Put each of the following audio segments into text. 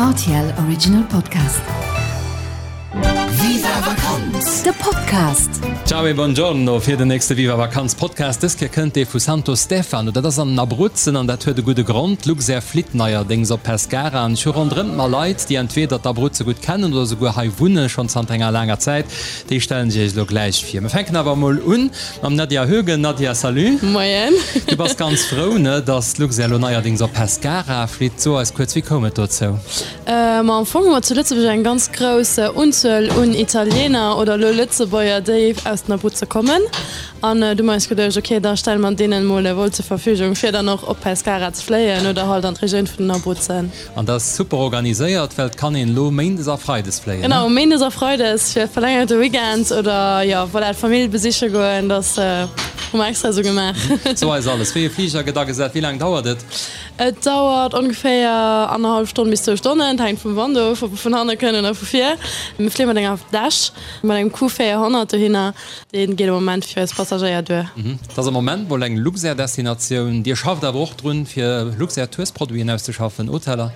Rtl Original Podcast. Viva Vakanz! De Podcast! Ciao e buongiorno fir den nächste Viva Vakanz Podcast. Dës Kéier kënnt dee vu Santo Stefano. Dat ass an den Abruzzen an dat huet e gudde Grond. D'Luxair flitt neierdéngs op Pescara an ech hu ronderëm mer Leit, déi entweder d'Abruzze gutt kennen oder souguer hei wunnen, schonn zanter enger laanger Zäit. Déi stellen ech iech elo gläich vir. Mir fänken awer emol un Mam Nadia Hoegen. Nadia, salut. Moien. Du bass ganz frou, ne, dass d'Luxair elo neierdings op Pescara flitt. So eis kuerz, wéi koum et dozou? Ma am Fong hu mer zu Lëtzebuerg eng ganz grouss Unzuel un Italiener oder elo Lëtzebuerger, déi aus den Abruzze kommen. An du hu mer eis geduecht, ok, da stelle mer deenen emol e Vol zur Verfügung, fir dann och op Pescara ze fléien oder halt an d'Regioun vun den Abruzzen. An dat ass super organiséiert, well et kann een elo méindes a freides fléien, ne? Genau, méindes a freides fir verlängerte Weekend oder jo, voilà, d'Famill besiche goen, dat hu mer extra esou gemaach. So eis alles, wéi e Fliger gëtt agesat, wéi laang dauert et? Et dauert ongeféier annerhallef Stonn bis zwou Stonnen, et hänkt vum Wand of, ob e vun hanne kënnt oder vu vir. Mir fléie mat enger Dash, mat engem Q400 dohinner. Dee geet am Moment fir eis Passagéier duer. Et ass am Moment mol eng Luxair-Destinatioun. Dir schafft awer och drun, fir Luxair-Tours-Produiten auszeschaffen, Hoteller?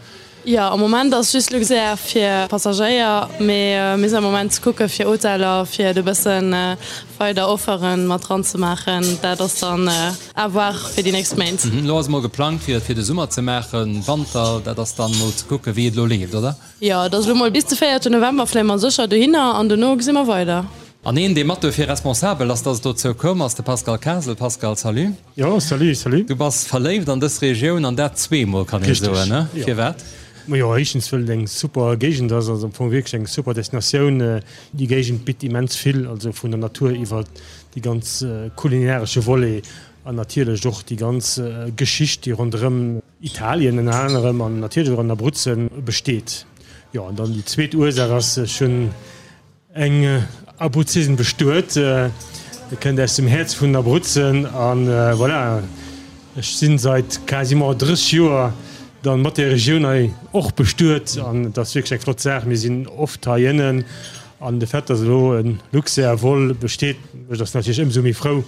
Jo, am Moment ass just Luxair fir Passagéier, mee mir sinn am Moment ze kucke fir Hoteller, fir et e bësse weider Offere mat dran ze maachen. Dat ass dann à voir fir déi nächst Méint. Elo ass emol geplangt, fir et fir de Summer ze maachen. Wanter, dat ass dann mol ze kucke wéi et elo leeft, oder? Jo, et ass elo mol bis de véierte November fléie mer sécher dohinner an dono gesi mer weider. An een, dee mat dofir responsabel ass, dass et dozou koum, ass de Pascal Kasel. Pascal, salut. Jo, salut, salut. Du bass verléift an dës Regioun, an dat zweemol, kann ee soen, ne? Richtig, jo. Firwat? Majo, éischtens, wëll et eng super Géigend ass, also am Fong wierklech eng super Destinatioun. Déi Géigend bitt immens vill, also vun der Natur iwwer déi ganz kulinaresche Volet an natierlech och déi ganz Geschicht, déi ronderëm Italien ënner anerem an natierlech och an Abruzzen besteet. Jo, an dann déi zweet Ursaach ass, ech hunn Eng Abruzzesen bestuet, kënnt aus dem Häerz vun den Abruzzen an voilà, ech sinn seit quasiment 30 Joer dann mat der Regioun hei och bestuet an et ass wierklech eng flott Saach. Mir sinn oft hei ënnen an de Fait dass elo en Luxair Vol besteet mécht eis natierlech ëmsou méi frou,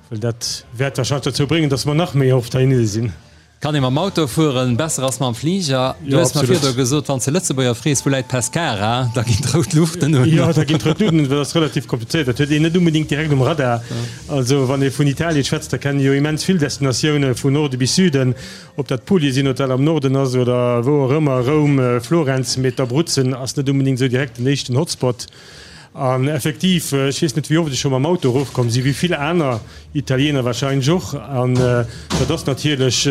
well dat wäert wahrscheinlech dozou bréngen, dass mer nach méi oft heihinne sinn. Kann ee mam Auto fueren, besser ass mam Fliger. Du hues mer virdru gesot, wann s de Lëtzebuerger frees, wou läit Pescara, da ginn d'rout Luuchten un. Jo, da ginn d'rout Luuchten un, dat ass relativ komplizéiert, dat huet een net unbedingt direkt um Radar. Also wann ee vun Italien schwätzt, da kennen jo immens vill Destinatioune vun Norde bis Süden, ob dat Puglie sinn, ob dat am Norden ass oder wou och ëmmer, Roum, Florenz, mee d'Abruzzen ass net unbedingt esou direkt den éischten Hotspot. An effektiv, ech weess net wéi oft ech scho mam Auto erofkomm sinn, wéi vill aner Italiener wahrscheinlech och, an dat ass natierlech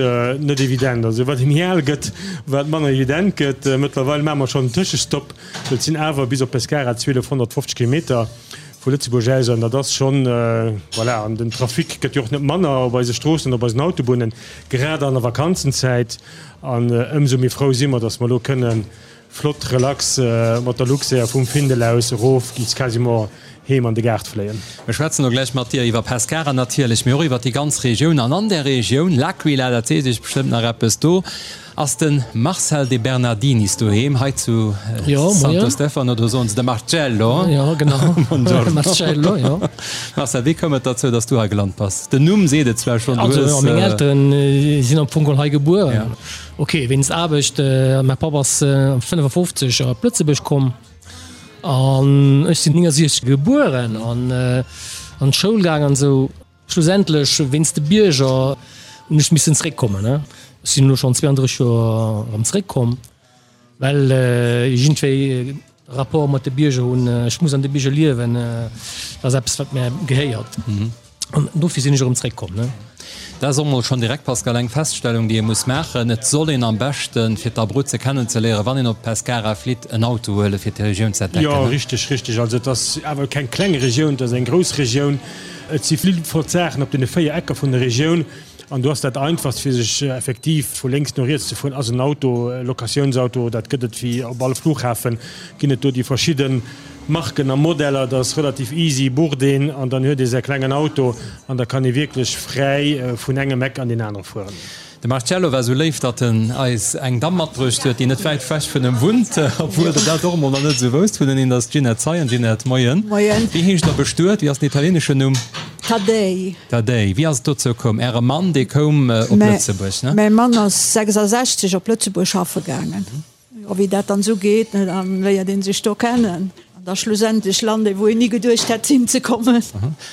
net evident. Also wat ee méi al gëtt, wat manner evident gëtt. Mëttlerweil maache mer schonn en Tëschestopp, well et sinn awer bis op Pescara 1250 Kilometer vu Lëtzebuerg aus an dat ass schonn, voilà. An den Trafic gëtt jo och net manner op eise Stroossen an op eisen Autobunnen, grad an der Vakanzenzäit. An ëmsou méi frou si mer, datt mer elo kënnen Flott relax mat der Luxair vum Findel aus erof bis quasiment heem an de Gaart fléien. Mir schwätzen elo gläich mat dir iwwer Pescara natierlech, mee och iwwer déi ganz Regioun. An an där Regioun, L'Aquila, dat seet iech bestëmmt nach eppes, do ass de Marcel De Bernardinis doheem, hei zu Santo Stefano, do soen se de Marcello. Jo, genau. Buongiorno. Marcello, jo. Marcel, wéi koum et derzou, dass du hei gelant bass? Den Numm seet et zwar schonn, du hues. Also, meng Elteren sinn am Fong geholl hei gebuer. Ok, wéinst Aarbecht. Mäi Papp ass 55 op Lëtzebuerg komm an ech sinn 69 gebueren an an d'Schoul gaang an esou. Schlussendlech wéinst de Bierger hunn ech missen zeréckkommen. Ech sinn elo schonn 32 Joer erëm zeréckkomm. Well iergendwéi Rapport mat de Bierger hunn, ech muss an de Bierger liewen, dat ass eppes wat mär gehéiert an dofir sinn ech erëm zréckkomm. Dat ass och mol schonn direkt, Pascal, eng Feststellung, déi ee muss maachen, Et soll een am beschten, fir d'Abruzze kennenzeléieren, wann een op Pescara flitt, en Auto huelen, fir d'Regioun ze entdecken. Jo, richteg, richteg. Also et ass awer keng kleng Regioun, et ass eng grouss Regioun. Et si vill flott Saachen op deene 4 Ecker vun der Regioun. An do ass dat einfachst fir sech effektiv vu lénks no riets ze fueren, ass en Auto, e Locatiounsauto. Dat gëtt et wéi op all Flughafen, ginn et do déi verschidde Marken a Modeller. Dat ass relativ easy, bucht een an dann huet ee säi klengen Auto an da kann ee wierklech fräi vun engem Eck an deen anere fueren. De Marcello war sou léif, datt en eis eng Damm matbruecht huet, déi net wäit wech vun em wunnt, obwuel der dat och emol nach net esou wousst. Vun en ass d'Ginette Zeien. Ginette, moien. Moien. Wéi heescht der bestuet? Wéi ass den italieneschen Numm? Taddei. Taddei. Wéi ass et dozou koum? Äre Mann, dee koum op Lëtzebuerg, ne? Mäi Mann ass 66 op Lëtzebuerg schaffe gaangen. Jo, wéi dat dann esou geet, ne, da léiert ee sech do kennen. An da schlussendlech lant ee wou een ni geduecht hätt hinzekommen.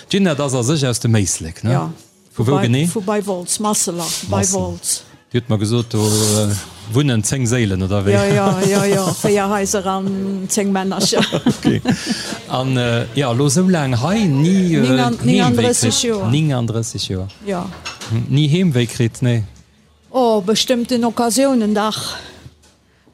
D'Ginette ass a sech aus dem Éislek, ne? Jo. Vu wou genee? Vu bei Wolz, Masseler, bei Wolz. Dir hutt mer gesot, do wunnen 10 Séilen, oder wéi? Jo, jo, jo, jo, 4 Haiser an 10 Männercher. Ok. An jo, elo esou laang hei, ni Heemwéi kritt? 39 Joer. 39 Joer. Jo. Ni Heemwéi kritt, nee? Oh, bestëmmten Occasiounen, dach.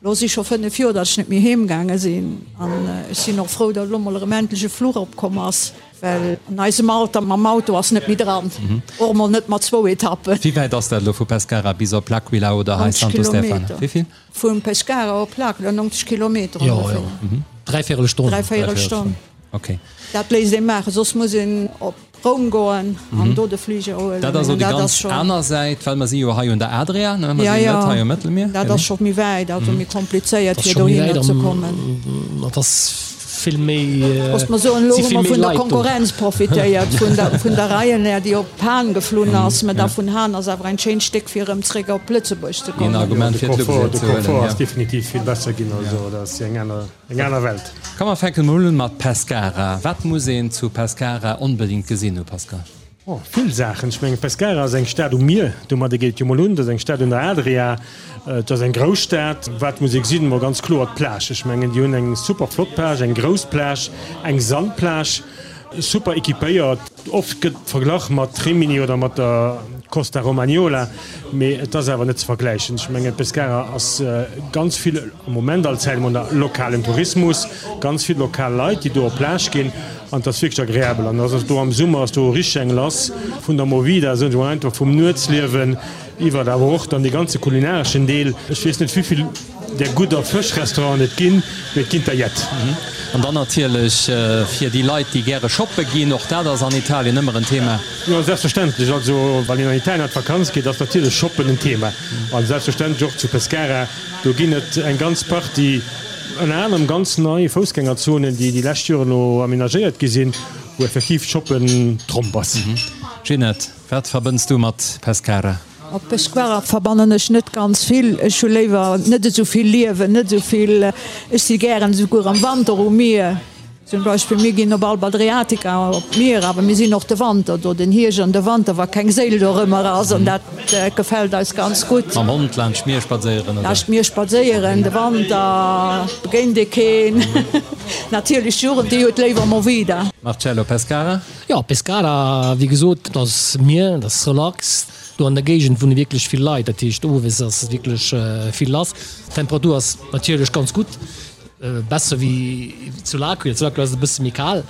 Lo si scho 5 Joer, datt ech net méi heem gaange sinn an ech sinn och frou, datt elo mol erëm endlech e Fluch opkomm ass, well an eisem Alter mam Auto ass net méi dran, och emol net mat zwou Etappen. Wéi wäit ass dat elo vu Pescara bis op L'Aquila oder hei 90 Santo Stefano? Kilometer. Wéi vill? Vu Pescara op L'Aquila 90 Kilometer Jo, ongeféier. jo, dräivéierel Stonn. Dräivéierel Stonn. Ok. Dat léisst ee maachen, soss muss een op Roum goen an do de Fliger huelen. Dat ass och déi ganz aner Säit, well mer si jo hei un der Adria, ne? Mer sinn net hei um Mëttelmier. Dat ass scho méi wäit, also méi komplizéiert fir dohinner ze kommen. Dat ass vill méi. Looss mer soen, elo hu mer vun der Konkurrenz profitéiert, vun der Ryanair, déi op Hahn geflunn ass. Mä da vun Hahn ass awer en schéint Stéck fir erëm zréck op Lëtzebuerg ze kommen. Een Argument fir d'Luxair ze huelen. De Confort ass definitiv vill besser ginn, also dat ass eng aner. Eng aner Welt. Komm mer fänken mol un mat Pescara. Wat muss een zu Pescara onbedingt gesinn hu Pascal? Oh, vill Saachen. Ech mengen Pescara ass eng Stad um Mier, domadder geet et jo mol un. Et ass eng Stad un der Adria, et ass eng grouss Stad. Wat muss ee gesinn? Mol ganz kloer d'Plage. Ech mengen déi hunn eng super flott Plage, eng grouss Plage, eng Sandplage, super equipéiert. Oft gëtt verglach mat Rimini oder mat der Costa Romagnola, mee et ass awer net ze vergläichen. Ech mengen Pescara ass ganz vill am Moment all Zäit emol lokalen Tourismus, ganz vill lokal Leit, déi do op Plage ginn an et ass wierklech agreabel. An ass do am Summer ass do richteg eng lass vun der Movida, soen ech emol einfach, vum Nuetsliewen iwwert awer och dann dee ganze kulinareschen Deel. Ech weess net wéivill där gudder Fëschrestauranten et ginn, mee et ginn der jett. An dann natierlech fir déi Leit, déi gäre shoppe ginn, och dat ass an Italien ëmmer en Thema. Jo, selbstverständlech. Also wann een an Italien an d'Vakanz geet, ass natierlech Shoppen en Thema. A selbstverständlech och zu Pescara. Do ginn et eng ganz Partie, ënner anerem ganz nei Foussgängerzonen, déi déi lescht Joren elo amenagéiert gi sinn, wou effektiv Shoppen Tromp ass. Ginette, wat verbënns du mat Pescara? Mat Pescara verbannen ech net ganz vill. Ech hu léiwer net esou vill Liewen, net esou vill. Ech si gären esouguer am Wanter um Mier. Zum Beispill mir ginn op Alba Adriatica op d'Mier, awer mir sinn och de Wanter do, den Hierscht an de Wanter, wa keng Séil dorëmmer ass, an dat gefält eis ganz gutt. Mam Hond laanscht d'Mier spadséieren, oder? Laanscht d'Mier spadséieren, de Wanter begéint ee keen. Natierlech d'Jugend, déi huet léiwer Movida. Marcello, Pescara? Jo, Pescara, wéi gesot, dat ass Mier, dat ass relax. Do an der Géigend wunne wierklech vill Leit, dat heescht owes ass wierklech vill lass. D'Temperatur ass natierlech ganz gutt, besser wéi zu L'Aquila. Zu L'Aquila ass et e bësse méi kal,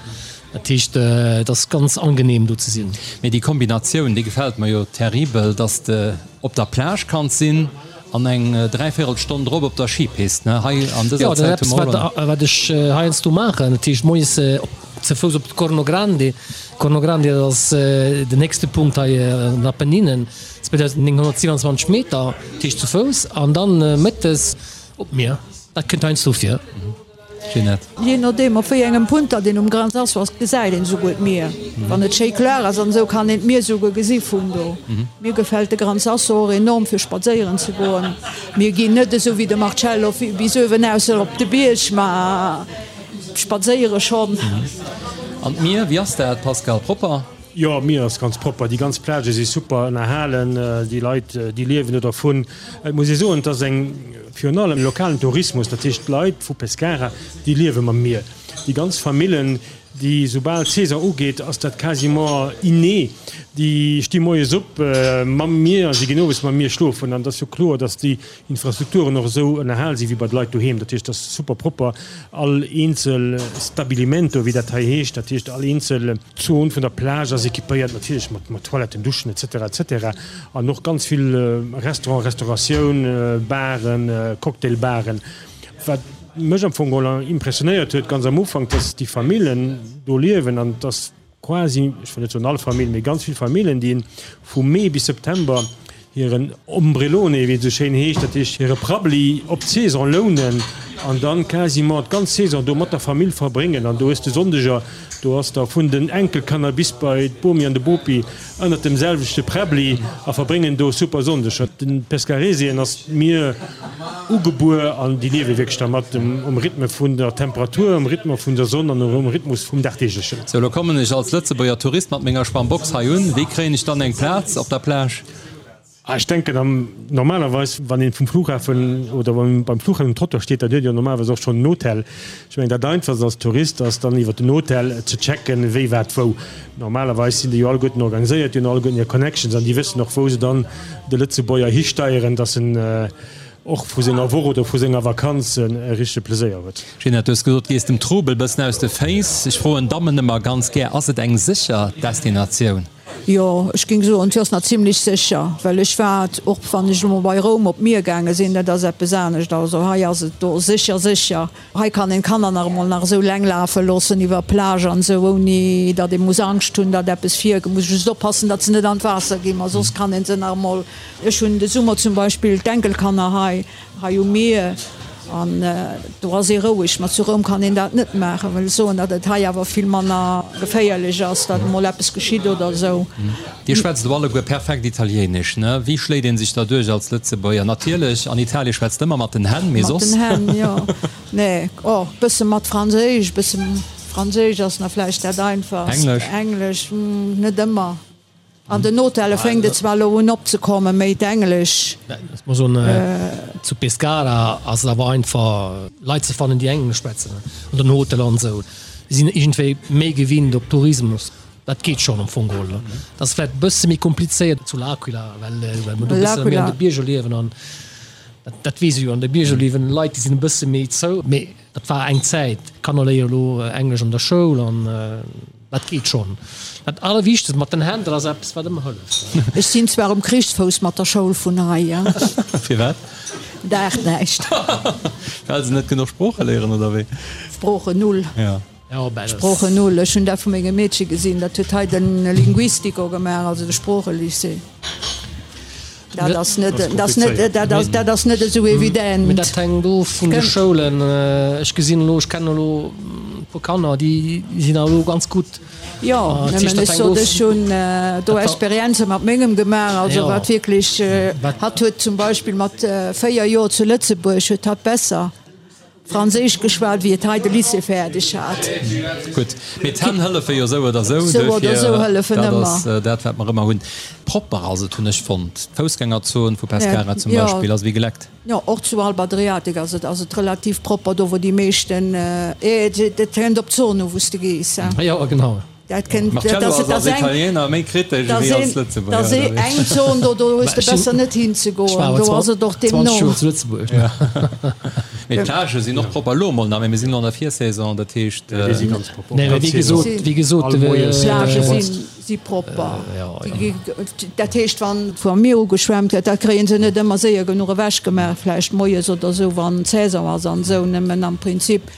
dat heescht et ass ganz angenehm do ze sinn. Mee déi Kombinatioun, déi gefält mer jo terribel, dass de op der Plage kanns sinn an eng dräivéierel Stonn drop op der Skipist, ne? Hei an dëser Zäit hu mer och elo. Jo, dat ass eppes, wat ech heiansdo maachen, dat heescht moies op ze Fouss op d'Corno Grande. Corno Grande, dat ass den héchste Punkt hei an den Apenninen, 2927 Meter, dat heescht zu Fouss, an dann mëttes op d'Mier. Dat kënnt heiansdo vir. Ginette. Jee nodeem op wéi engem Punt datt een um Gran Sasso ass, gesäit een esouguer d'Mier. Wann et schéi kloer ass an esou, kann een d'Mier esouguer gesi vun do. Mir gefält de Gran Sasso och enorm fir spadséieren ze goen. Mir ginn net esou wéi de Marcello bis uewen aus op de Bierg, ma Spadséiere schonn. An d'Mier, wéi ass dat, Pascal? Propper? Jo, d'Mier ass ganz propper. Déi ganz Plagë si super ënnerhalen. Déi Leit, déi liewen do dervun. Et muss ee soen, et ass eng, virun allem lokalen Tourismus. Dat heescht, d'Leit vu Pescara, déi liewe mam Mier. Déi ganz Famillen, déi, soubal d'Saison ugeet, ass dat quasiment inné. Déi sti moies op mam Mier a si ginn owes mam Mier schlofen. An et ass jo kloer, datt déi Infrastrukturen och esou ënnerhal si wéi bei de Leit doheem. Dat heescht, et ass super propper, all eenzel Stabilimento, wéi dat hei heescht, dat heescht all eenzel Zon vun der Plage ass équipéiert, natierlech mat Toiletten, Duschen et cetera et cetera an och ganz vill Restaurant, Restauratioun, Baren, Cocktailbaren. Wat mech am Fong geholl impressionéiert huet ganz am Ufank, dass déi Famillen do liewen an dass quasi, ech wëll net soen all Famill, mee ganz vill Famillen, déi vu Mee bis September hiren Ombrellone, wéi et esou schéin heescht, dat heescht hire Prabbeli op d'Saison lounen. an dann quasiment d'ganz Saison do mat der Famill verbréngen an do hues de Sonndeger, do ass da vun den Enkelkanner bis bei d'Bomi an de Bopi ënnert dem selwechte Präbbli a verbréngen do super Sonndeger. Den Pescaresien ass d'Mier ugebuer an déi liewe wierklech dermat, um Rhythme vun der Temperatur, um Rhythme vun der Sonn an um Rhythmus vum Dagdeeglechen. Sou, lo kommen ech als Lëtzebuerger Tourist mat menger Schwammbox hei un. Wéi kréien ech dann eng Plaz op der Plage? Ech denken am normalerweis wann een vum Flughafen oder beim Flughafen um Trottoir steet, dann huet een jo normalerweis och schonn en Hotel. Ech mengen dat einfachst als Tourist ass dann iwwer den Hotel ze checken wéi wat wou. Normalerweis sinn déi jo alleguerten organiséiert, déi hunn alleguerten hir Connections an déi wëssen och wou se dann de Lëtzebuerger histeieren, datt en och vu senger Woch oder vu senger Vakanz e richtege Pleséier huet. Ginette, du hues gesot, du gees dem Trubel bëssen aus de Féiss. Ech froen Dammen ëmmer ganz gär, Ass et eng sécher Destinatioun? Jo, ech géing soen, et ass nach zimlech sécher, well ech war och, wann ech elo mol bei Roum op d'Mier gaange sinn, dat ass eppes anescht. Also hei ass et do sécher, sécher. Hei kann een d'Kanner nach emol nach esou leng lafe loossen iwwer d'Plage an esou, ouni datt ee muss Angscht hunn, datt eppes vir. Muss just oppassen, datt se net an d'Waasser ginn, ma soss kann ee se nach emol. Ech hunn de Summer zum Beispill d'Enkelkanner hei. Hei um Mier, an do ass ee roueg. Ma zu Roum kann een dat net maachen. Wëll soen, datt et hei awer vill manner geféierlech ass, datt emol eppes geschitt oder esou. Dir schwätzt elo alleguer perfekt Italieenesch, ne? Wéi schléit ee sech da duerch als Lëtzebuerger? Natierlech, an Italie schwätzt ëmmer mat den Hänn, mee soss? Mat den Hänn, jo. Nee, oh, bësse mat Franséisch, bësse Franséisch ass nach vläicht dat einfachst. Englesch? Englesch, net ëmmer. An den Hotelle fänkt et zwar elo un opzekommen, méi d'Englesch. Ech muss soen, zu Pescara ass et awer einfach Leit ze fannen, déi Englesch schwätzen an den Hoteller an esou. Déi sinn iergendwéi méi gewinnt op Tourismus. Dat geet schonn am Fong geholl. Dat ass vläicht e bësse méi komplizéiert zu L'Aquila, well mer do e bësse méi an de Bierger liewen an dat weess ee jo, an de Bierger liewen Leit, déi sinn e bësse méi zou. Mee dat war eng Zäit. D'Kanner léiere elo Englesch an der Schoul an. Dat geet schonn. Dat Allerwichtegst, mat den Hänn, dat ass eppes, wat ëmmer hëlleft. Ech sinn zwar um Krichsfouss mat der Schoul vun hei. Firwat? Daacht näischt. Well se net genuch Sprooche léieren, oder wéi? Sproochen null. Ja. Sproochen null. Ech hunn dat vu mengem Meedche gesinn, dat huet hei de Linguistico gemaach, also de Sproochelycée. Dat ass net, dat ass net, dat ass, dat ass net esou evident. Mee dat hänkt of vun de Schoulen. Ech gesinn elo, ech kennen elo e puer Kanner, déi sinn elo ganz gutt. Jo, nëmmen ech sot, ech hunn do Experienze mat mengem gemaach, also wat wierklech, hatt huet zum Beispill mat 4 Joer zu Lëtzebuerg huet hatt besser Franséisch geschwat, wéi et hei de Lycée fäerdeg hat. Gutt, mee d'Hänn hëllefe jo sou oder sou, Sou oder sou hëllefen dat ëmmer. ass dat, wat mer ëmmer hunn. Propper ass et, hunn ech fonnt. D'Foussgängerzon vu Pescara zum Jo. Beispill ass ewéi geleckt. Jo, och zu Alba Adriatica ass et ass et relativ propper, do wou déi meeschten, et kënnt op d'Zon u wou s de gees. Jo, genau. Dat kënnt, Marcello ass als Italiener méi kritesch ewéi als Lëtzebuerger. Dat ass eng Zon, do do hues de besser net hinzegoen, do ass et och deemno. 20 Joer zu Lëtzebuerg. Mee d'Plagë sinn och propper elo emol nach, mee mir sinn elo an der Virsaison, dat heescht. Déi si ganz propper. Nee, wéi gesot, wéi gesot, D'Plagë si propper. Dat heescht, wann vum Mier ugeschwemmt gëtt, dat kréie se net ëmmer séier genuch ewechgemaach, vläicht moies oder esou, wann Saison ass an esou. Nëmmen am Prinzip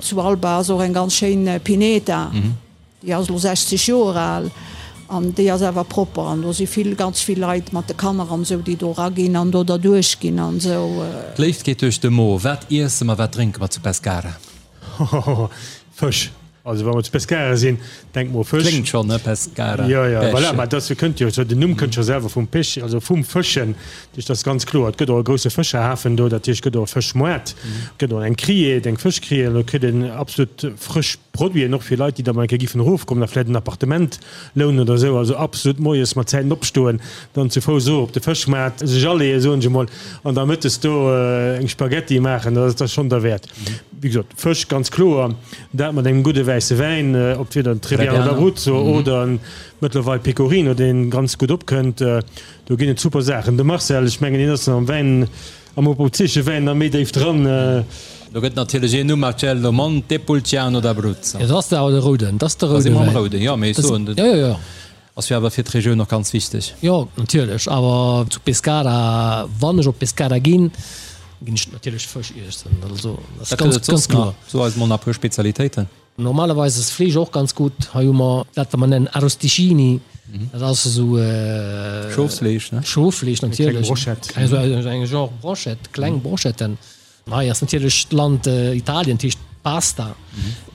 Zu Alba ass och eng ganz schéin Pineta, déi ass elo 60 Joer al an déi ass awer propper an do si vill, ganz vill Leit mat de Kanner an esou, déi do eraginn an do derduerch ginn an esou. D'Léift geet duerch de Mo. Wat iesse mer, wat drénke mer zu Pescara? Hohoho, Fësch. Also wa mer zu Pescara sinn, denke mer u Fësch. Kléngt schonn, ne? Pescara, Jo, jo, voilà, Pesche. mä dat kënnt jo, den Numm kënnt scho selwer vum Pech, also vum Fëschen. Dat heescht, dat ass ganz kloer. Et gëtt och e grousse Fëscherhafen do, dat heescht, et gëtt och e Fëschmoart, et gëtt och eng Criée, eng Fëschcriée, an do kritt een absolut frësch Produiten, och fir Leit, déi da mol eng Kéier giffen erofkommen a vläicht en Appartement lounen oder esou. Also absolut moies mat Zäiten opstoen, dann zu Fouss erof op de Fëschmaart, sech aleeën, soen ech emol, an da mëttes do eng Spaghetti maachen, dat ass schonn derwäert. Wéi gesot, Fësch ganz kloer, dat mat engem gudde wäisse Wäin, ob weder en Trebbiano d'Abruzzo oder en mëttlerweil Pecorino, dee ganz gutt opkënnt. Do ginn et super Saachen. De Marcel, ech mengen hien ass am Wäin, am abruzesche Wäin nach méi déif dran. Do gëtt natierlech een Numm, Marcello Montepulciano d'Abruzzo. Jo, dat ass awer de rouden, dat ass de roude Da si mer am Wäin. rouden, jo, mee ech soen, Jo, jo, jo. ass jo awer fir d'Regioun och ganz wichteg. Jo, natierlech, awer zu Pescara, wann ech op Pescara ginn, ginn ech natierlech Fësch iessen. Also, dat ass Wat gëtt ganz, et soss ganz kloer. nach? So eis mol nach e puer Spezialitéiten. Normalerweis ass Fleesch och ganz gutt. Hei hu mer dat, wat mer nennen Arrosticini. Dat ass esou. Schofsfleesch, ne? Schoffleesch natierlech. Eng kleng Brochette. Esou eng Genre Brochette, kleng Brochetten. Hei ass natierlech d'Land Italien, dat heescht Pasta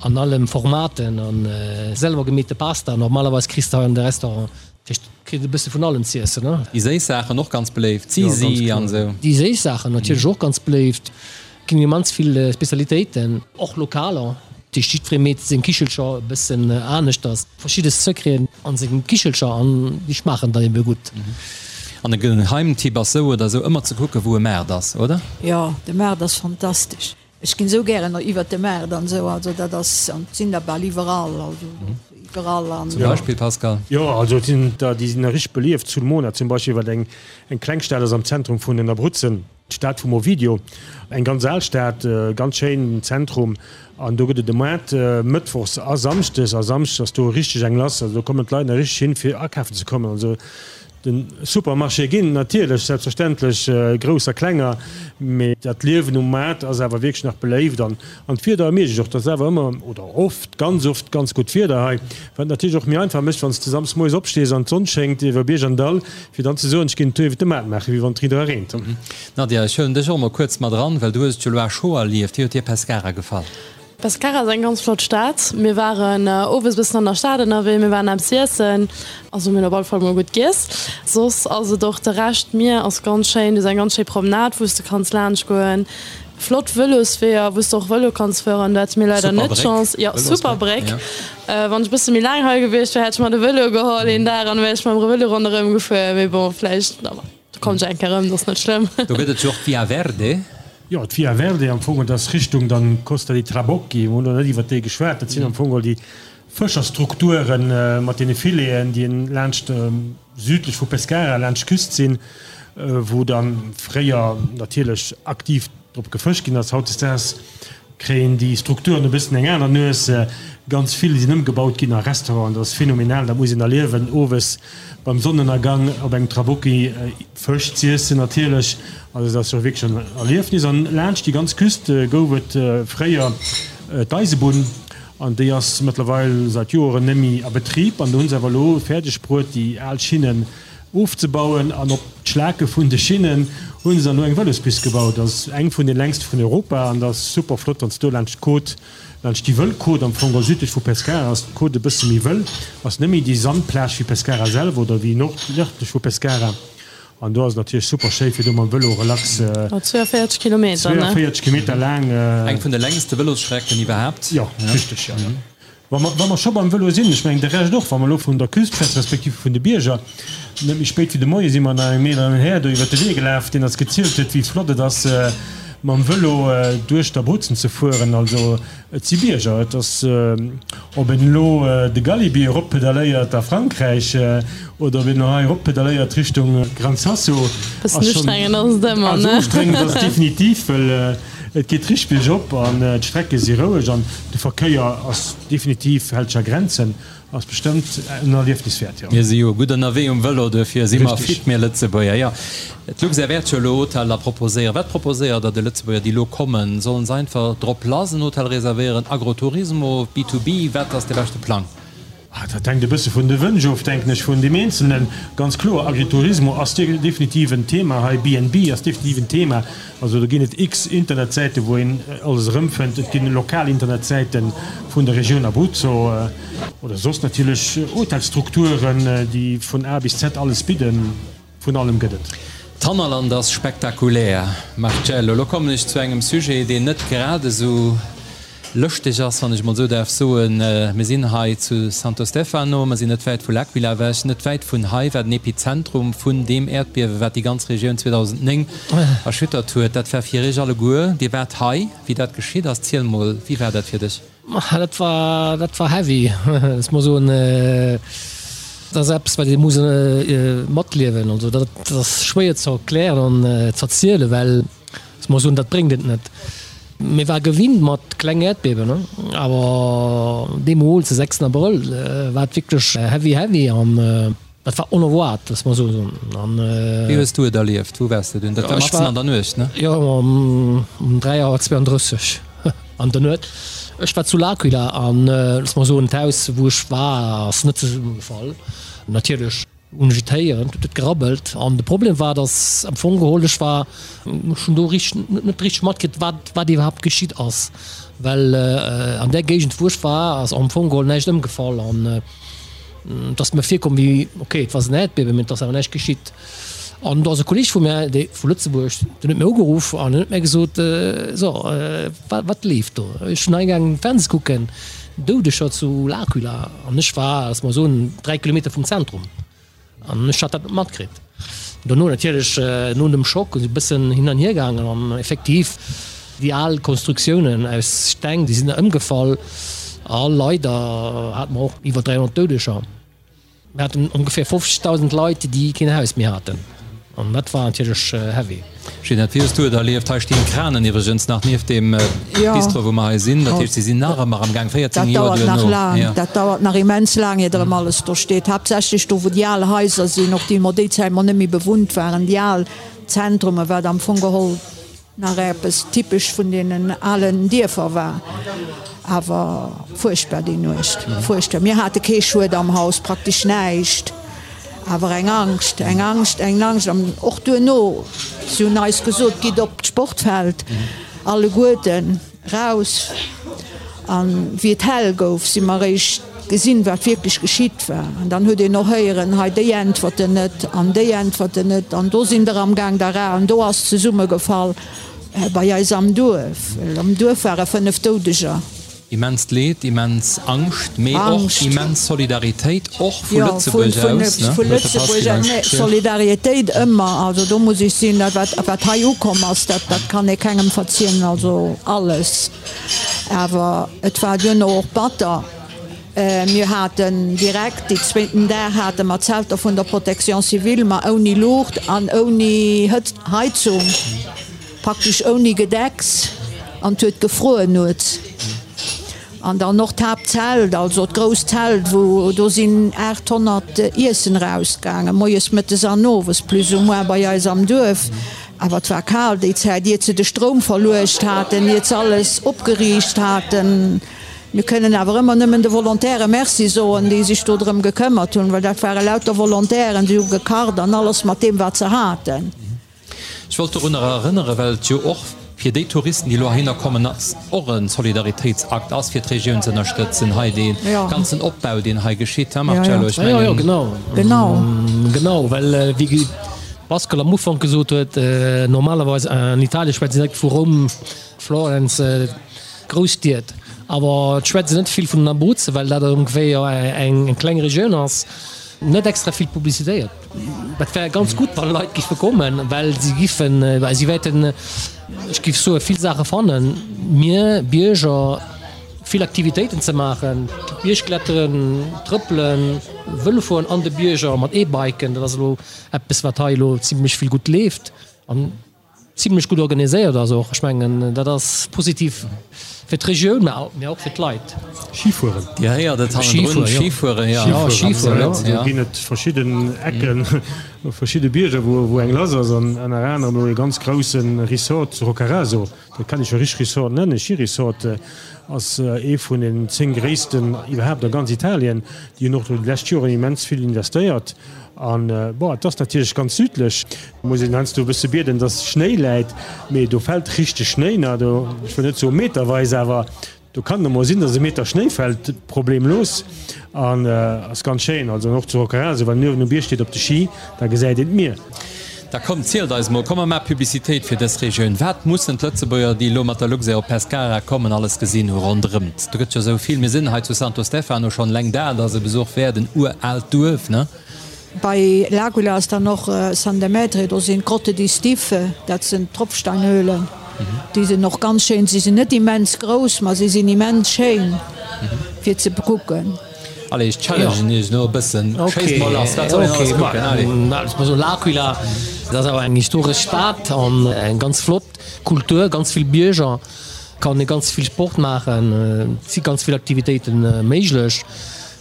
an allen Formaten an selwer gemeete Pasta. Normalerweis kriss de hei an de Restaurant, dat heescht kritt e bësse vun allem z'iessen. Déi séiss Saachen och ganz beléift, Zisi an esou. Déi séiss Saachen natierlech och ganz beléift. Ginn immens vill Spezialitéiten, och lokaler. Dat heescht jiddweree meet seng Kichelcher e bëssen aneschters. Verschidde Secreten an sengem Kichelcher an déi schmaachen dann ebe gutt. An e Geheimtipp ass sou oder sou ëmmer ze kucken wou e Maart ass, oder? Jo, de Maart ass fantastesch. Ech ginn sou gären iwwert de Maart an sou, also dat ass, an et sinn der bal iwwerall, also iwwerall an. Zum Beispill, Pascal? Jo, also et sinn der, déi sinn richteg belieft. Sulmona zum Beispill, wat eng eng kleng Stad ass am Zentrum vun den Abruzzen. D'Stad vum Ovidio, eng ganz al Stad, ganz schéin Zentrum an do gëtt et e Moart mëttwochs a samschdes a samschdes ass do richteg eng lass, also do kommen d'Leit nach richteg hin fir akafen ze kommen. Also de Supermarché ginn natierlech selbstverständlech grouss a klenger, mee dat Liewen um Maart ass awer wierklech nach beléift an an d'Wieder ermiergt och, et ass awer ëmmer oder oft, ganz oft ganz gutt Wieder hei, wat natierlech och méi einfach mécht wann s de samsdes moies opstees an d'Sonn schéngt iwwer Bierg an Dall. Fir dann ze soen, ech ginn en Tour iwwer de Maart maachen, wéi wann et riit era reent. Nadia, ech huelen dech och emol kuerz mat eran, well du hues et jo elo à chaud erlieft. Wéi huet dir Pescara gefall? Pescara ass eng ganz flott Stad. Mir waren owes e bëssen an der Stad ënnerwee, mir waren eppes iessen, also mir hunn op alle Fall mol gutt giess. Soss ass et och de Rescht, d'Mier ass ganz schéin, du hues eng ganz schéi Promenade wou s de kanns laanscht goen. Flott Vëlosweeër, wou s de och Vëlo kanns fueren. Do hate mir leider net d'Chance. Jo, super Bréck. Wann ech e bësse méi laang hei gewiescht wär, hätt ech mer de Vëlo geholl een Dag an da wär ech mam Vëlo ronderëm gefuer. Mee bon, vläicht, do kommen ech eng Kéier erëm, dat ass net schlëmm. Do gëtt et jo och d'Via Verde. Jo, d'Via Verde am Fong, dat ass Richtung dann Costa dei Trabocchi. Mir hunn elo net iwwert déi geschwat. Dat sinn am Fong all déi Fëscherstrukture mat deene Fileten, déi laanscht südlech vu Pescara laanscht d'Küst sinn, wou da fréier natierlech aktiv drop gefëscht ginn ass. Hautdesdaags kréien déi Strukturen e bëssen eng aner Nues. Ganz vill sinn ëmgebaut ginn a Restauranten. Dat ass phänomenal, dat muss een erliewen, owes beim Sonnenënnergang op engem Trabocchi Fësch z'iessen natierlech. Also dat ass jo wierklech en Erliefnis. An laanscht déi ganz Küst gouf et fréier d'Eisebunn. An déi ass mëttlerweil säit Joeren net méi a Betrib. An do hunn se awer elo fäerdeg bruet, déi al Schinnen ofzebauen. An op d'Schlake vun de Schinnen hu se dann elo eng Vëlospist gebaut. Dat ass eng vun de längste vun Europa. An dat ass super flott, wann s de do laanscht d'Côte, laanscht déi wëll Côte am Fong, well südlech vu Pescara ass d'Côte e bësse méi wëll, ass net méi déi Sandplage wéi Pescara selwer oder wéi nordlech vu Pescara. An do ass et natierlech super schéi fir do mam Vëlo relax. 42 Kilometer, ne? 42 Kilometer laang. Eng vun de längste Vëlosstrecken iwwerhaapt. Jo, richteg, jo. Wa mer, wa mer scho beim Vëlo sinn, ech mengen de Rescht och, wa mer elo vun der Küst schwätzen, respektiv vun de Bierger, net méi spéit wéi de Moie si mer nach engem eeleren Här do iwwert de Wee gelaf, deen eis gezielt huet, wéi flott et ass, mam Vëlo duerch d'Abruzzen ze fueren. Also Et si Bierger. Et ass, ob een elo de Galibier eroppedaléiert a Frankräich oder ob een elo hei eroppedaléiert Richtung Gran Sasso, ass schonn. Ustrengend ass et ëmmer, ne? Also ustrengend ass et definitiv, well et geet richteg biergop an d'Strecke si roueg an de Verkéier ass definitiv, hält sech a Grenzen. Ass bestëmmt en Erliefnis wäert, jo. Mir si jo gutt ënnerwee um Vëlo, duerfir si mer fit, mir Lëtzebuerger. Jo, d'Luxair wäert jo elo Hoteller proposéieren. Wat proposéiert Der de Lëtzebuerger, déi elo kommen? Sollen se einfach drop lass en Hotel reservéieren, Agroturismo, B-to-B? Wat ass de beschte Plang? Dat hänkt e bësse vun de Wënsch of, denken ech, vun deem Eenzelnen. Ganz kloer, Agriturismo ass definitiv en Thema hei, B&B ass definitiv en Thema. Also do ginn et x Internetsäite wou een alles erëmfënnt. Et ginn lokal Internetsäite vun der Regioun Abruzzo oder soss natierlech Hotelstrukturen, déi vun A bis Z alles bidden. Vun allem gëtt et. D'Hannerland ass spektakulär, Marcello. Elo kommen ech zu engem Sujet, deen net grad esou lëschteg ass, wann ech emol esou däerf soen. Mir sinn hei zu Santo Stefano, mer sinn net wäit vu L'Aquila ewech. Net wäit vun hei war den Epizentrum vun deem Äerdbiewe wat déi ganz Regioun 2009 erschüttert huet. Dat war fir iech alleguer, Dir waart hei, wéi dat geschitt ass. Ziel mol, wéi war dat fir dech? Dat war, dat war heavy, ech muss soen. Dat ass eppes, wat ee muss matliewen. Also dat ass schwéier ze erklären an ze erzielen, well ech muss soen, dat bréngt et net. Mir war gewinnt mat kleng Äerdbiewen, awer deemools, de 6 Abrëll, war et wierklech heavy, heavy an dat war onerwaart, loosse mer esou soen. An Wéi hues du et erlieft? Wou waars de dunn? Dat war matzen an der Nuecht, ne? Jo, um 3 Auer 32 an der Nuet. Ech war zu L'Aquila an, loosse mer soen, d'Haus, wou ech war, ass net zesummegefall, natierlech. Hunn ech et héieren, huet et gerabbelt. An de Problem war, datt am Fong geholl ech war, ech hunn do richteg, net richteg matkritt, wat, wat iwwerhaapt geschitt ass. Well an där Géigend, wou ech war, ass am Fong geholl näischt ëmgefall. An et ass mir virkomm wéi, okay, et war en Äerdbiewen, mee et ass awer näischt geschitt. An do ass e Kolleeg vu mär, dee vu Lëtzebuerg, deen huet mir ugeruff an huet mir gesot, So, wat, wat leeft do? Ech hunn hei gaangen Fernseh kucken, Doudeger zu L'Aquila. An ech war, lass mer soen, 3 Kilometer vum Zentrum. An ech hat dat net matkritt. Dono natierlech, no dem Schock, esou e bëssen hin an hier gaangen. An effektiv, déi al Konstruktiounen aus Steng, déi sinn da ëmgefall. A leider hate mer och iwwer 300 Doudeger. Mir haten ongeféier 50.000 Leit, déi keen Haus méi haten. An dat war natierlech heavy. Ginette, wéi hues du et erlieft? Hei stinn d'Kranen iwwregens nach nieft deem Bistro, wou mer hei sinn. Dat heescht, si sinn nach ëmmer am Gaang, 14 Joer duerno. Dat dauert nach immens laang, iert erëm alles do steet. Haaptsächlech do, wou déi al Haiser sinn, och déi mer déi Zäit mol net méi bewunnt waren, déi al Zentrumen, wat am Fong geholl Nach eppes typesch vun deenen alen Dierfer war. Awer fuerchtbar déi Nuecht, fuerchtbar. Mir hate kee Schued am Haus, praktesch näischt, awer eng Angscht, eng Angscht, eng Angscht. An och duerno, si hunn eis gesot, gitt op d'Sportfeld alleguerten. Raus, an wéi et hell gouf, si mer eréischt gesinn, wat wierklech geschitt war. An dann huet een och héieren, hei déi äntwerten net an déi äntwerten net an do sinn der am Gaang der an do ass zesummegefall bei eis am Duerf. Well am Duerf ware 5 Doudeger. Immenst Leed, immens Angscht, mee och immens Solidaritéit, och vu Lëtzebuerg aus, ne? Vu Lëtzebuerg aus, nee, Solidaritéit ëmmer, also do muss ech sinn, dat wat, wat hei ukomm ass, dat, dat kann ee kengem verziehen, also alles. Awer et war duerno och batter. Mir haten direkt déi zweeten Dag hate mer Zelter vun der Protection civile, ma ouni Luucht an ouni Heizung. Praktesch ouni Gedecks an 't huet gefruer nuets. An dann och d'Haaptzelt, also d'grousst Zelt, wou do sinn 800 Iessen erausgaangen, moies, mëttes an owes plus ou moins bei eis am Duerf. Awer 't war kal déi Zäit, iert se de Stroum verluecht haten, iert se alles opgeriicht haten. Mir kënnen awer ëmmer nëmmen de Volontäre Merci soen, déi sech do drëm gekëmmert hunn, well dat ware lauter Volontairen, déi hu gekacht an alles mat deem wat se haten. Ech wollt dorunner erënneren, well et jo och fir déi Touristen, déi elo heihinner kommen, och e Solidaritéitsakt ass, fir d'Regioun ze ënnerstëtzen, hei dee ganzen Opbau, deen hei geschitt, hein Marcello? Ech mengen. Jo, jo, genau. Genau. Genau, well wéi Pascal am Ufank gesot huet, normalerweis an Italien schwätzt een direkt vu Roum, Florenz, Grousstied, awer et schwätzt een net vill vun den Abruzzen, well dat ongeféier eng kleng Regioun ass, net extra vill publicitéiert. Dat wär ganz gutt, wa Leit giffe kommen, well si giffen, si wäerten, ech giff soen, vill Saache fannen. Mir Bierger, vill Aktivitéiten ze maachen, Biergkletteren, Trëppelen, Vëlo fueren an de Bierger mat E-Biken, dat ass elo eppes, wat hei elo zimlech vill gutt leeft. An Zimlech gutt organiséiert ass och. Ech mengen, dat ass positiv fir d'Regioun, mä och fir d'Leit. Schifueren. Dir héiert et hannendrun, Schifueren, jo. Schifueren, jo. Do ginn et verschidden Ecken, verschidde Bierger, wou eng lass ass. An ënner anerem elo ee ganz grousse Resort zu Roccaraso, dat kann ee scho richteg Resort nennen, Schiresort, ass ee vun den 10 gréissten iwwerhaapt a ganz Italien. Déi hunn och do déi lescht Joren immens vill investéiert. An, bon, et ass natierlech ganz südlech, muss een heiansdo e bësse bieden, dass Schnéi läit, mee do fält richteg Schnéi, na, do, ech wëll net soe meterweis, awer do kann et emol sinn, dass e Meter Schnéi fält, problemlos. An ass ganz schéin, also an och zu Roccaraso, wann een uewen um Bierg steet op de Ski, da gesäit een d'Mier. Da kommt, zielt eis mol, komm mer maache Publicitéit fir dës Regioun. Wat mussen d'Lëtzebuerger, déi elo mat der Luxair op Pescara kommen, alles gesinn hu ronderëmt? Do gëtt jo esou vill. Mir sinn hei zu Santo Stefano schonn, eleng dat ass e Besuch wäert, en uraalt Duerf, ne? Bei L'Aquila ass dann och San Demetrio, do sinn d'Grotte di Stiffe, dat sinn Tropfsteinhöhlen, déi sinn och ganz schéin. Si sinn net immens grouss, ma si sinn immens schéin fir ze bekucken. Allez, ech challengen iech elo e bëssen. Schéisst mol lass, wat soll een alles kucken? Allez. Ech muss soen, L'Aquila, dat ass awer eng historesch Stad an eng ganz flott Kultur, ganz vill Bierger, kann ee ganz vill Sport maachen, et si ganz vill Aktivitéite méiglech.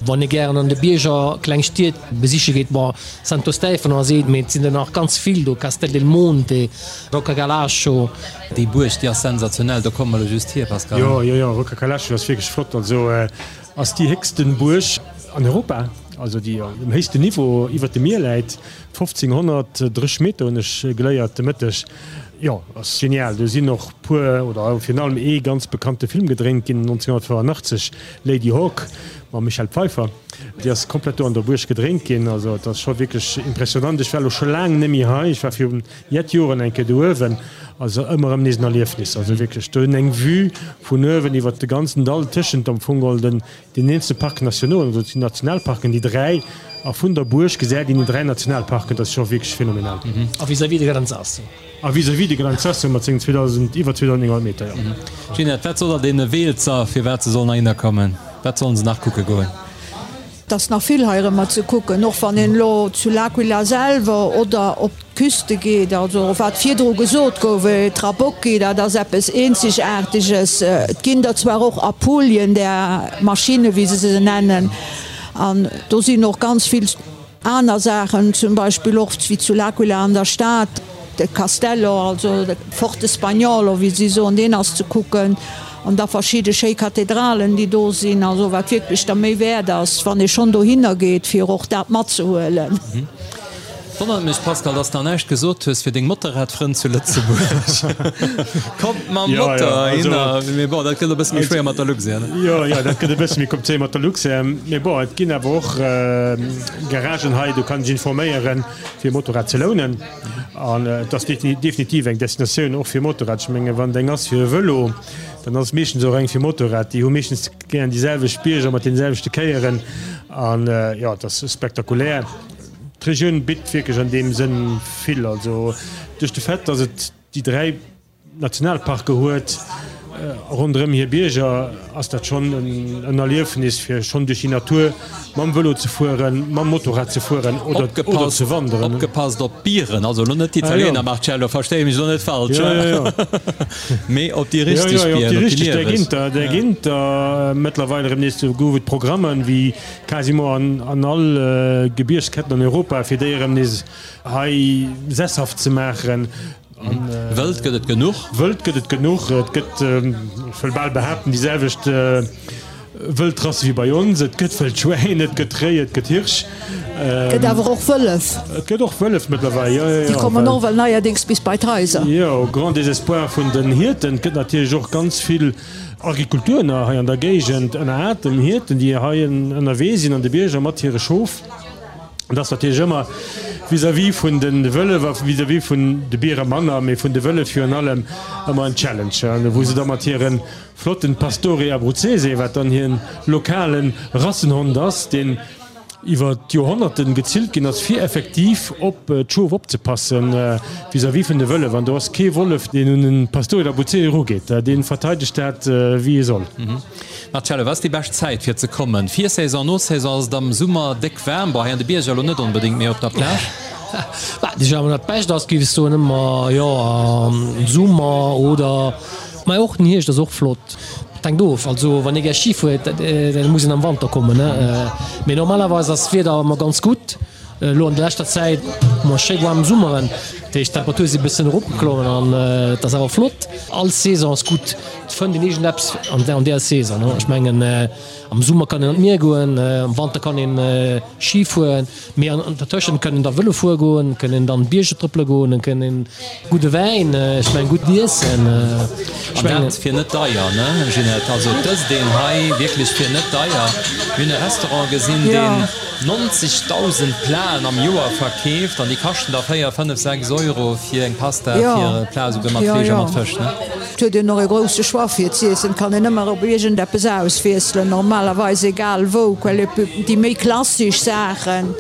Wann ee gären an de Bierger kleng Stied besiche geet, bon, Santo Stefano ass eent, mee et sinn der nach ganz vill do, Castel del Monte, Rocca Calascio. Déi Buerg, déi ass sensationell, do komme mer elo just hier, Pascal. Jo, jo, jo, Rocca Calascio ass wierklech flott. Also Ass déi héchsten Buerg an Europa. also déi um héchsten Niveau iwwert dem Mier läit, 1530 Meter hunn ech geléiert de Mëtteg. Jo, ass genial. Do sinn och puer, oder virun allem ee ganz bekannte Film gedréint ginn 1985, Lady Hawk mam Michelle Pfeiffer. Déi ass komplett do an der Buerg gedréint ginn. Also et ass scho wierklech impressionant. Ech war elo scho laang net méi hei. Ech war virun jett Joren eng Kéier do uewen. Also ëmmer erëm nees en Erliefnis. Also wierklech do hunn eng Vue vun uewen iwwert de ganzen Dall tëschent am Fong geholl den den eenzele Parc nationaux, also déi Nationalparken, déi dräi, a vun der Buerg gesäit een déi dräi Nationalparken. Dat ass scho wierklech phänomenal. A vis-à-vis de Gran Sasso. A vis-à-vis de Gran Sasso mat sengen 2000, iwwer 2.900 Meter, jo. Ginette, wat sot der deene Weelzer, firwat se sollen heihinner kommen? Wat sollen se nach kucke goen? Et ass nach vill heirëmmer ze kucken, och wann een elo zu L'Aquila selwer oder op d'Küste geet. Also wat virdru gesot gouf, Trabocchi, dat ass eppes Eenzegaarteges. Et ginn der zwar och Apulien, där Maschinne wéi se se nennen, an do sinn och ganz vill aner Saachen, zum Beispill och wéi zu L'Aquila an der Stad, de Castello, also de Forte Spagnolo, wéi si soen, deen ass ze kucken. An da verschidde schéi Kathedralen, déi do sinn, also wat wierklech der Méi wäert ass, wann ee schonn dohinner geet, fir och dat matzehuelen. Wonnert mech Pascal, dass de nach näischt gesot hues fir deng Motorradfrënn zu Lëtzebuerg. Kommt mam Motor heihinner. Mee bon, dat gëtt e bësse méi schwéier mat der Luxair, ne? Jo, jo, dat gëtt e bësse méi komplizéiert mat der Luxair. Mee bon, et ginn awer och Garagen hei, do kann ee sech informéieren, fir e Motorrad ze lounen. An et ass definitiv eng Destinatioun och fir Motorrad. Ech menge wann et eng ass fir e Vëlo, dann ass et meeschtens och eng fir Motorrad. Déi hu meeschtens gären déi selwecht Bierger mat deene selwechte Kéieren. An jo, et ass spektakulär. D'Regioun bitt wierklech an deem Sënn vill. Also duerch de Fait, datt et déi 3 Nationalparke huet ronderëm hir Bierger, ass dat schonn en Erliefnis fir schonn duerch déi Natur mam Vëlo ze fueren, mam Motorrad ze fueren oder ze wanderen. Opgepasst op d'Bieren, also elo net d'Italiener, Marcello, verstehe mech elo net falsch, mee op déi richteg Bieren, op déi lieweg. Där ginn der mëttlerweil erëm nees. Do gouf et Programmen, wéi quasiment an all Gebiergsketten an Europa, fir déi erëm nees hei sesshaft ze maachen. Wëld gëtt et genuch. Wëld gëtt et genuch. Et gëtt, ech wëll bal behaapten, déi selwecht Wëldrasse wéi bei ons. Et gëtt Wëldschwäin, et gëtt Réi, et gëtt Hirsch. Et gëtt awer och Wëllef. Et gëtt och Wëllef mëttlerweil, jo, jo, jo. Déi kommen och well neierdéngs bis bei d'Haiser. Jo, au grand désespoir vun den Hierten. Et gëtt natierlech och ganz vill Agrikultur nach hei an der Géigend, ënner atem Hierten, déi hei ënnerwee sinn an de Bierger mat hire Schof. Et ass natierlech ëmmer vis-à-vis vun de Wëllef a vis-à-vis vun de Biere manner, mee vun de Wëllef virun allem ëmmer en Challenge, wou se da mat hire flotten Pastore Abruzzese, wat dann hire lokale Rassenhond ass, deen iwwer d'Joerhonnerten gezillt ginn ass, fir effektiv op d'Schof opzepassen vis-à-vis vun de Wëllef. An do ass kee Wollef, deen un e Pastore d'Abruzzese erugeet, dee verteidegt dat wéi e soll. Marcello, wat ass déi bescht Zäit fir ze kommen? Virsaison, Nosaison, ass et am Summer déck waarm? Bon, hei an de Bierger elo net onbedéngt, mee op der Plage? Bah, déjà, wann dat Bescht ass, géif ech soen ëmmer, jo, am Summer oder, mä och den Hierscht ass och flott. Et hänkt of, also wann ee gär Ski fuert, da muss een am Wanter kommen, ne? Mee normalerweis ass d'Wieder ëmmer ganz gutt. Elo an der leschter Zäit hu mer schéi waarm Summeren, dat heescht d'Temperature si bëssen eropgeklommen an et ass awer flott. All Saison ass gutt, et fënnt een iergendeppes an där Saison. Ech mengen am Summer kann een an d'Mier goen, am Wanter kann een Ski fueren, mee an dertëschent kann een da Vëlo fuere goen, kann een dann Bierger trëppele goen, et kann een gudde Wäin, ech mengen gutt Iessen. An dat fir net deier, ne Ginette? Also et ësst een hei wierklech fir net deier. Mir hunn e Restaurant gesinn, deen 90.000 Platen am Joer verkeeft an déi kaschten da 4, 5, 6 Euro fir eng Pasta, fir e Plat esouguer mat Fleesch a mat Fësch, ne? Et huet een och e grousse Choix fir z'iessen, et kann een ëmmer op iergendeppes auswiesselen, normalerweis egal wou, quelle déi méi klassesch Saachen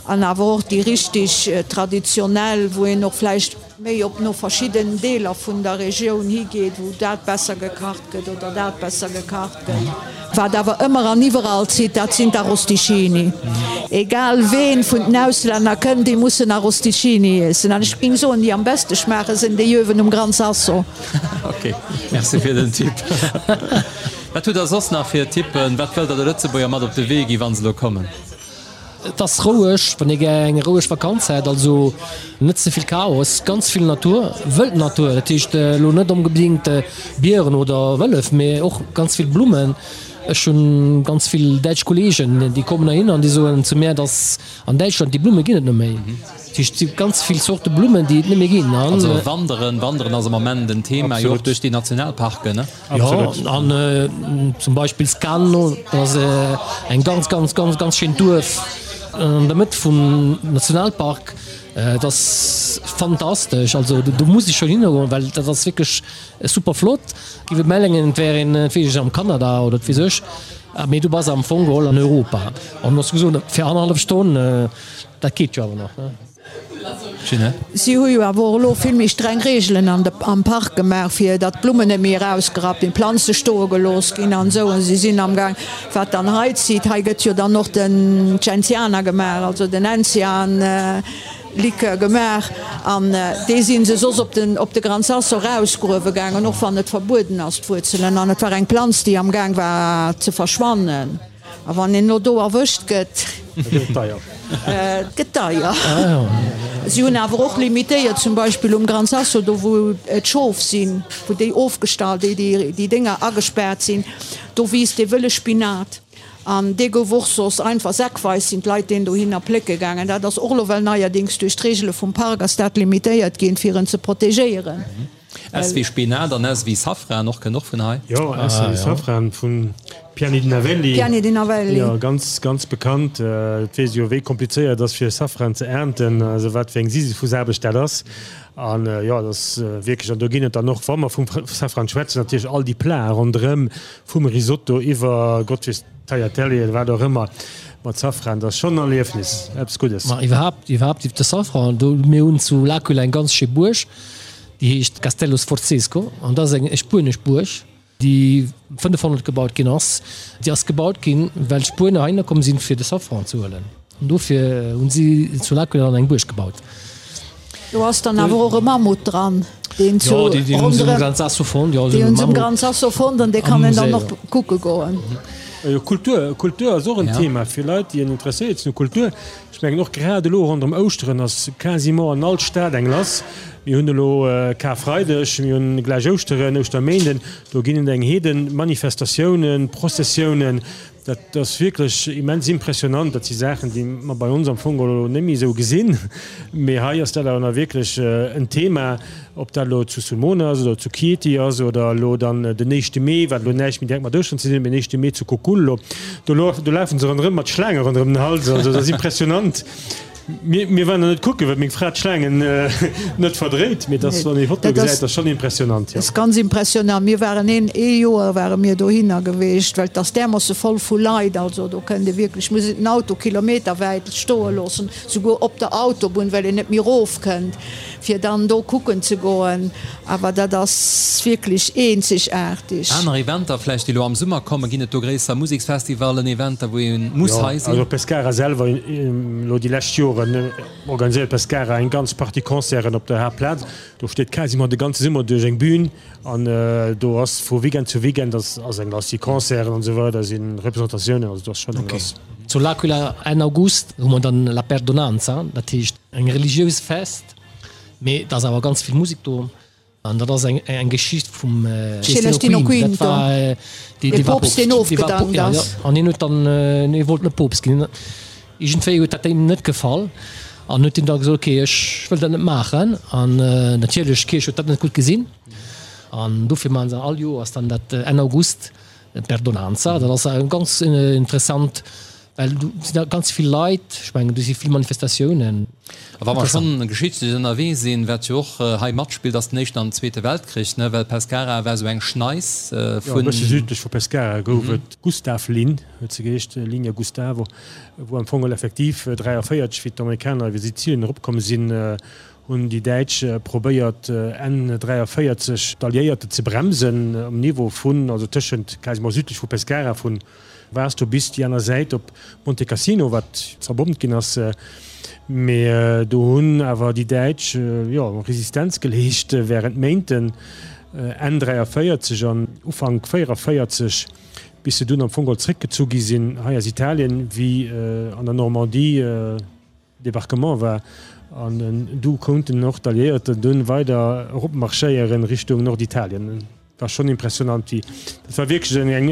an awer och déi richtig traditionell, wou een och vläicht méi op no verschidden Deeler vun der Regioun higeet, wou dat besser gekacht gëtt oder dat besser gekacht gëtt. Wat awer ëmmer an iwwerall zitt, dat sinn d'Arrosticini. Egal ween vun den Auslänner kënnt, déi mussen Arrosticini iessen. An ech géing soen, déi am beste schmaache sinn déi uewen um Gran Sasso. Ok, merci fir den Tipp. Wat hutt der soss nach fir Tippen? Wat wëllt der de Lëtzebuerger mat op de Wee gi wa se elo kommen? Et ass roueg, wann ee gär eng roueg Vakanz hätt, also net ze vill Chaos, ganz vill Natur, wëld Natur, dat heescht elo net onbedéngt Bieren oder Wëllef, mee och ganz vill Blummen. Ech hunn ganz vill däitsch Kollegen, déi kommen heihinner an déi soen zu mär, dass an Däitschland déi Blumme ginn et net méi. Dat heescht, et si ganz vill Zorte Blummen, déi et net méi ginn. Also wanderen, wanderen ass am Ament en Thema, jo och duerch déi Nationalparken, ne? Jo, an zum Beispill Scanno, dat ass eng ganz, ganz, ganz, ganz schéint Duerf an der Mëtt vum Nationalpark. Dat ass fantastesch, also do muss ee schonn hingoen, well dat ass wierklech super flott. Giff et mengen, et wär een, wat weess ech, am Kanada oder wat weess ech, mee du bass am Fong geholl an Europa. An du has gesot, fir annerhallef Stonn, dat geet jo awer nach, ne? Ginette. Si hu jo awer och elo vill méi streng Reegelen an de, am Park gemaach, fir datt d'Blummen net méi erausgerappt ginn, d'Planze stoe gelooss ginn an esou. Si sinn amgaang, wat dann hei zitt, hei gëtt jo dann och den Gentiana gemaach, also den Enzian. Likör gemaach an dee si se soss op den op de Gran Sasso rausgruewe gaangen, och wann et verbueden ass, d'Wuerzelen. An et war eng Planz, déi am Gaang war ze verschwannen. A wann een elo do erwëscht gëtt, Da gëtt et deier. Et gëtt deier. Si hunn awer och limitéiert, zum Beispill um Gran Sasso, do wou d'Schof sinn, wou déi ofgestallt, déi déi Dénger agespaart sinn, do wiisst dee wëlle Spinat. An dee gouf och soss einfach säckweis sinn d'Leit deen dohinner plécke gaangen. Dat ass och elo well neierdings duerch d'Regele vum Park ass dat limitéiert ginn, fir en ze protegéieren. S wéi Spinat an S wéi Safran och, kënnt och vun hei. Jo, S wéi Safran vun Piani di Navelli. Piani di Navelli. Jo, ganz, ganz bekannt. Et weess ee jo wéi komplizéiert et ass fir Safran ze ernten, also wat fir eng Sisyphusaarbecht dat ass. An jo, dat ass wierklech, an do ginn et dann och, wa mer vum Safran schwätzen, natierlech all déi Platen ronderëm, Vum Risotto iwwer Gott weess Tagliatelle oder wat och ëmmer mat Safran, dat ass schonn en Erliefnis, eppes Guddes. Ma iwwerhaapt, iwwerhaapt iwwer de Safran, do, mir hunn zu L'Aquila eng ganz schéi Buerg, déi heescht Castello Sforzesco an dat ass eng spuenesch Buerg, déi 500 gebaut ginn ass. Déi ass gebaut ginn, well d'Spuener heihinner komm sinn, fir de Safran ze huelen. An dofir hunn si zu L'Aquila dann eng Buerg gebaut. Do ass dann awer och e Mammut dran, deen zu ronderëm, déi hunn se um Gran Sasso fonnt an dee kann een dann och kucke goen. Jo, Kultur, Kultur ass och en Thema fir Leit, déi interesséiert sinn u Kultur. Ech mengen och grad elo ronderëm Ouschteren ass quasiment an all Stad eng lass. Mir hunn elo Karfreideg, mir hunn gläich Ouschteren, Ouschterméinden, do ginn et eng Heeden Manifestatiounen, Prozessiounen. Dat ass wierklech immens impressionant. Dat si Saachen, déi mer bei ons am Fong elo net méi esou gesinn. Mee hei ass dat awer nach wierklech en Thema, ob dat elo zu Sulmona ass oder zu Chieti ass oder elo dann den éischte Mee, wat elo näischt méi direkt mat Ouschteren ze dinn huet, mee den éischte Mee zu Cocullo. Do lafe se ronderëm mat Schlaange ronderëm den Hals. Also dat ass impressionant. Mir, mir waren net kucken, well meng Fra d'Schlaangen net verdréit, mee dass, wann ee Fotoe gesäit, ass schonn impressionant, jo. Dat ass ganz impressionant. Mir waren een, ee Joer ware mir dohinner geweecht, well et ass därmoosse voll vu Leit. Also do kënnt ee wierklech, muss een den Auto kilometerwäit stoe loossen, souguer op der Autobunn, well een net méi erofkënnt, fir dann do kucken ze goen. Awer dat ass wierklech eenzegaarteg. Aner Eventer vläicht, déi elo am Summer kommen, ginn et do gréisser Museksfestivallen, Eventer, wou ee muss hei sinn? Jo, also Pescara selwer, elo déi lescht Joren organiséiert Pescara eng ganz Partie Concerten op der Haaptplaz. Do steet quasiment de ganze Summer duerch eng Bühn an do ass vu Weekend zu Weekend ass eng lass, si Concerten an esou weider, si Representatiounen, also do ass schonn eng lass. Zu L'Aquila Enn August hu mer dann La Perdonanza, dat heescht eng religiös Fest. Mee et ass awer ganz vill Musek do an dat ass eng Geschicht vum Celestino Quinto, dat war dee Poopst, deen ofgedankt ass. An hien huet dann, hie wollt net Poopst ginn. Iergendwéi huet dat deem net gefall an huet hien da gesot, okay, ech wëll dat net maachen. An natierlech, d'Kierch huet dat net gutt gesinn an dofir maachen se all Joers dann dat Enn August, d'Perdonanza. Dat ass ganz interessant. Well do sinn da ganz vill Leit, ech mengen do si vill Manifestatiounen. A wa mer schonn geschichtlech ënnerwee sinn, wat jo och hei matspillt, ass den Éischten an den Zweete Weltkrich, ne? Well Pescara war esou eng Schneis vun. Jo, e bësse südlech vu Pescara gouf et d'Gustav-Linn, huet se geheescht, Linea Gustavo, wou am Fong effektiv 43, wéi d'Amerikaner iwwer Sizilien eropkomm sinn, hunn déi Däitsch probéiert Enn 43 d'Alliéierte ze bremsen um Niveau vun, also tëschent, quasiment südlech vu Pescara, vun Vasto bis déi aner Säit op Monte Cassino, wat zerbommt ginn ass. Mee do hunn awer déi Däitsch, jo, Resistenz geleescht wärend Méinten, Enn 43 an Ufank 44, bis se dunn am Fong geholl zréckgezu gi sinn hei aus Italien, wéi an der Normandie Débarquement war. An du konnten och d'Alliéierten dunn weider eropmarschéieren Richtung Norditalien. War schonn impressionant wéi dat war wierklech eng eng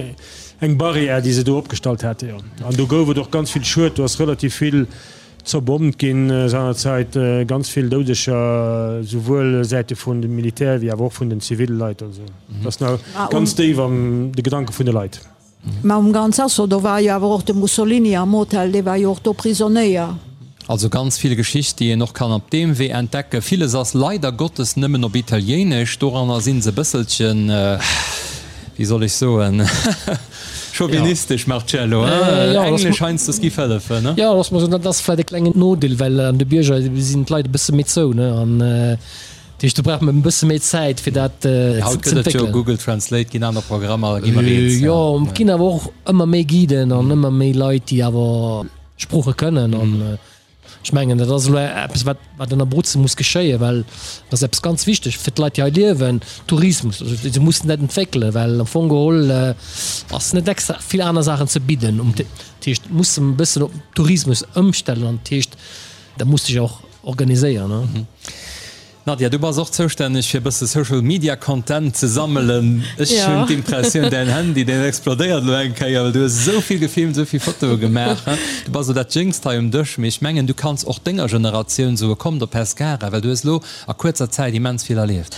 eng Barrière déi se do opgestallt hate jo. An do gouf et och ganz vill Schued, do ass relativ vill zerbommt ginn seinerzäit, ganz vill Doudeger souwuel Säite vun dem Militär wéi awer och vun den ziville Leit. Also dat ass nach ganz déif an de Gedanke vun de Leit. Mä um Gran Sasso, do war jo awer och de Mussolini am Hotel, dee war jo och do Prisonéier. Also ganz vill Geschicht, déi een och kann op deem Wee entdecken. Villes ass leider Gottes nëmmen op Italiéinesch. Doranner si se e bësselchen, wéi soll ech soen, chauvinistesch, Marcello, hein? Englesch heiansdo giff hëllefen, ne? Jo, looss mer soen, dat ass vläicht e klengen Nodeel, well an de Bierger sinn d'Leit e bësse méi zou, ne? An Dat heescht, do brauch mer e bësse méi Zäit, fir dat ze entwéckelen. Haut gëtt et jo Google Translate, ginn aner Programmer, gi mer eens. Jo, et ginn awer och ëmmer méi Guiden an ëmmer méi Leit, déi awer Sprooche kënnen. An ech mengen, dat ass elo eppes, wat, wat an Abruzzen muss geschéien, well dat ass eppes ganz wichteg fir d'Leit, déi hei liewen, Tourismus. Also se mussen dat entwéckelen, well am Fong geholl ass net extra vill aner Saachen ze bidden. Dat heescht, musse e bëssen op Tourismus ëmstellen an dat heescht, da muss sech och organiséieren. Nadja, du bass och zoustänneg fir e bësse Social Media Content ze sammelen. Ech hunn d'Impressioun, däin Handy, deen explodéiert elo eng Kéier, well du hues esou vill gefilmt, esou vill Fotoe gemaach. Du bass elo dat Jéngst hei um Dësch, mee ech mengen, du kanns och denger Generatioun soe kommt op Pescara, well du hues elo a kuerzer Zäit immens vill erlieft.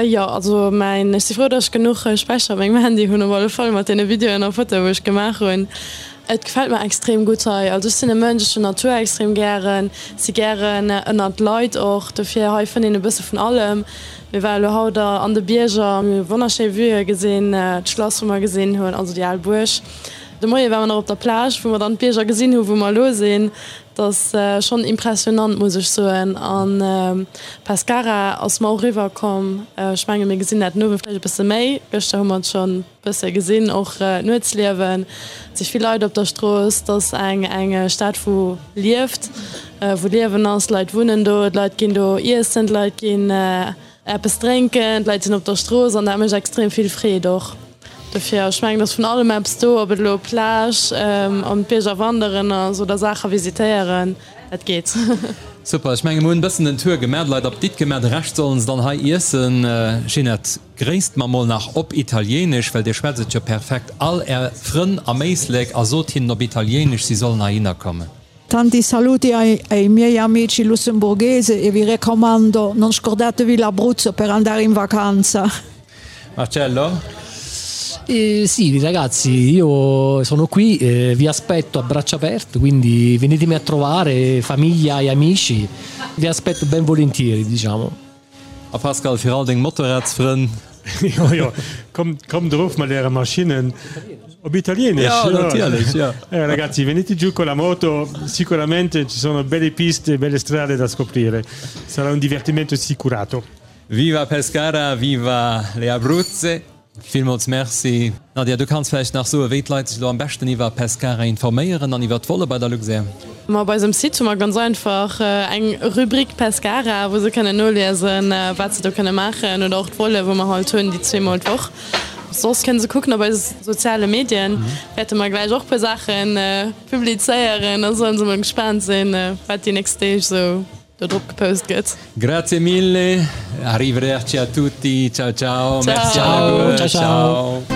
Jo, also mäin, ech si frou, datt ech genuch Späicher op mengem Handy hunn, op alle Fall mat deene Videoen a Fotoe wou ech gemaach hunn. Et gefält mer extrem gutt hei. Also ech sinn e Mënsch, ech hunn Natur extrem gären, si gären ënnert Leit och, dofir hei fënnt een e bësse vun allem. Mir ware lo haut an de Bierger, mir hu wonnerschéi Vueë gesinn, d'Schlass wou mer gesinn hunn, also déi al Buerg. De Moie ware mer nach op der Plage, wou mer dann d'Bierger gesinn hu wou mer elo sinn. Dat ass schonn impressionant, muss ech soen. An Pescara ass mer och eriwwer komm. Ech menge mir gesinn dat den Owend vläicht e bësse méi. Gëschter hu mer et schonn. Bësse gesinn, och d'Nuetsliewen, et si vill Leit op der Strooss, et ass eng eng Stad wou lieft, wou Liewen ass, d'Leit wunnen do, d'Leit ginn do iessen, d'Leit ginn eppes drénken, d'Leit sinn op der Strooss an dat mécht extrem vill Freed och. Dofir, ech mengen, et ass vun allem eppes do, ob et elo Plage, an d'Bierger wanderen ass oder Saache visitéieren, dat geet. Super, ech menge mer hunn e bëssen den Tour gemaach, d'Leit Apditt gemaach, de Rescht sollen se dann hei iessen. Ginette. Gréisst mer mol nach op Italiéinesch, well dir schwätzt et jo perfekt, all är Frënn am Éislek a sot hinnen op Italiéinesch, si sollen heihinner kommen. Tanti saluti ai ai miei amici lussemburghese e vi raccomando, non scordatevi l'Abruzzo per andare in vacanza. Marcello? Eh, sì, ragazzi, io sono qui, eh, vi aspetto a braccia aperte, quindi venitemi a trovare, famiglia e amici, vi aspetto ben volentieri, diciamo. A Pascal, fir all deng Motorradsfrënn. Jo, jo, kommt, kommt erof mat äre Maschinnen. Op Italienisch? Ja, natierlech, ja. Eh, ragazzi, venite giù con la moto, sicuramente ci sono belle piste e belle strade da scoprire. Sarà un divertimento assicurato. Viva Pescara, viva le Abruzze! Villmools Merci. Nadia, du kanns vläicht nach soen, wéi d'Leit sech elo am beschten iwwer Pescara informéieren an iwwer d'Volle bei der Luxair? Ma op eisem Site hu mer ganz einfach eng Rubrik Pescara, wou se kënnen noliesen, wat se do kënne maachen oder och d'Volle, wou mer halt hunn, déi zweemol d'Woch. Soss kënne se kucken op eise soziale Medien, wäerte mer gläich och puer Saache publizéieren. Da sollen se mol gespaant sinn, wat déi nächst Deeg esou Do drop gepost gëtt. Grazie mille, arrivederci a tutti, ciao ciao, merci alleguer, ciao.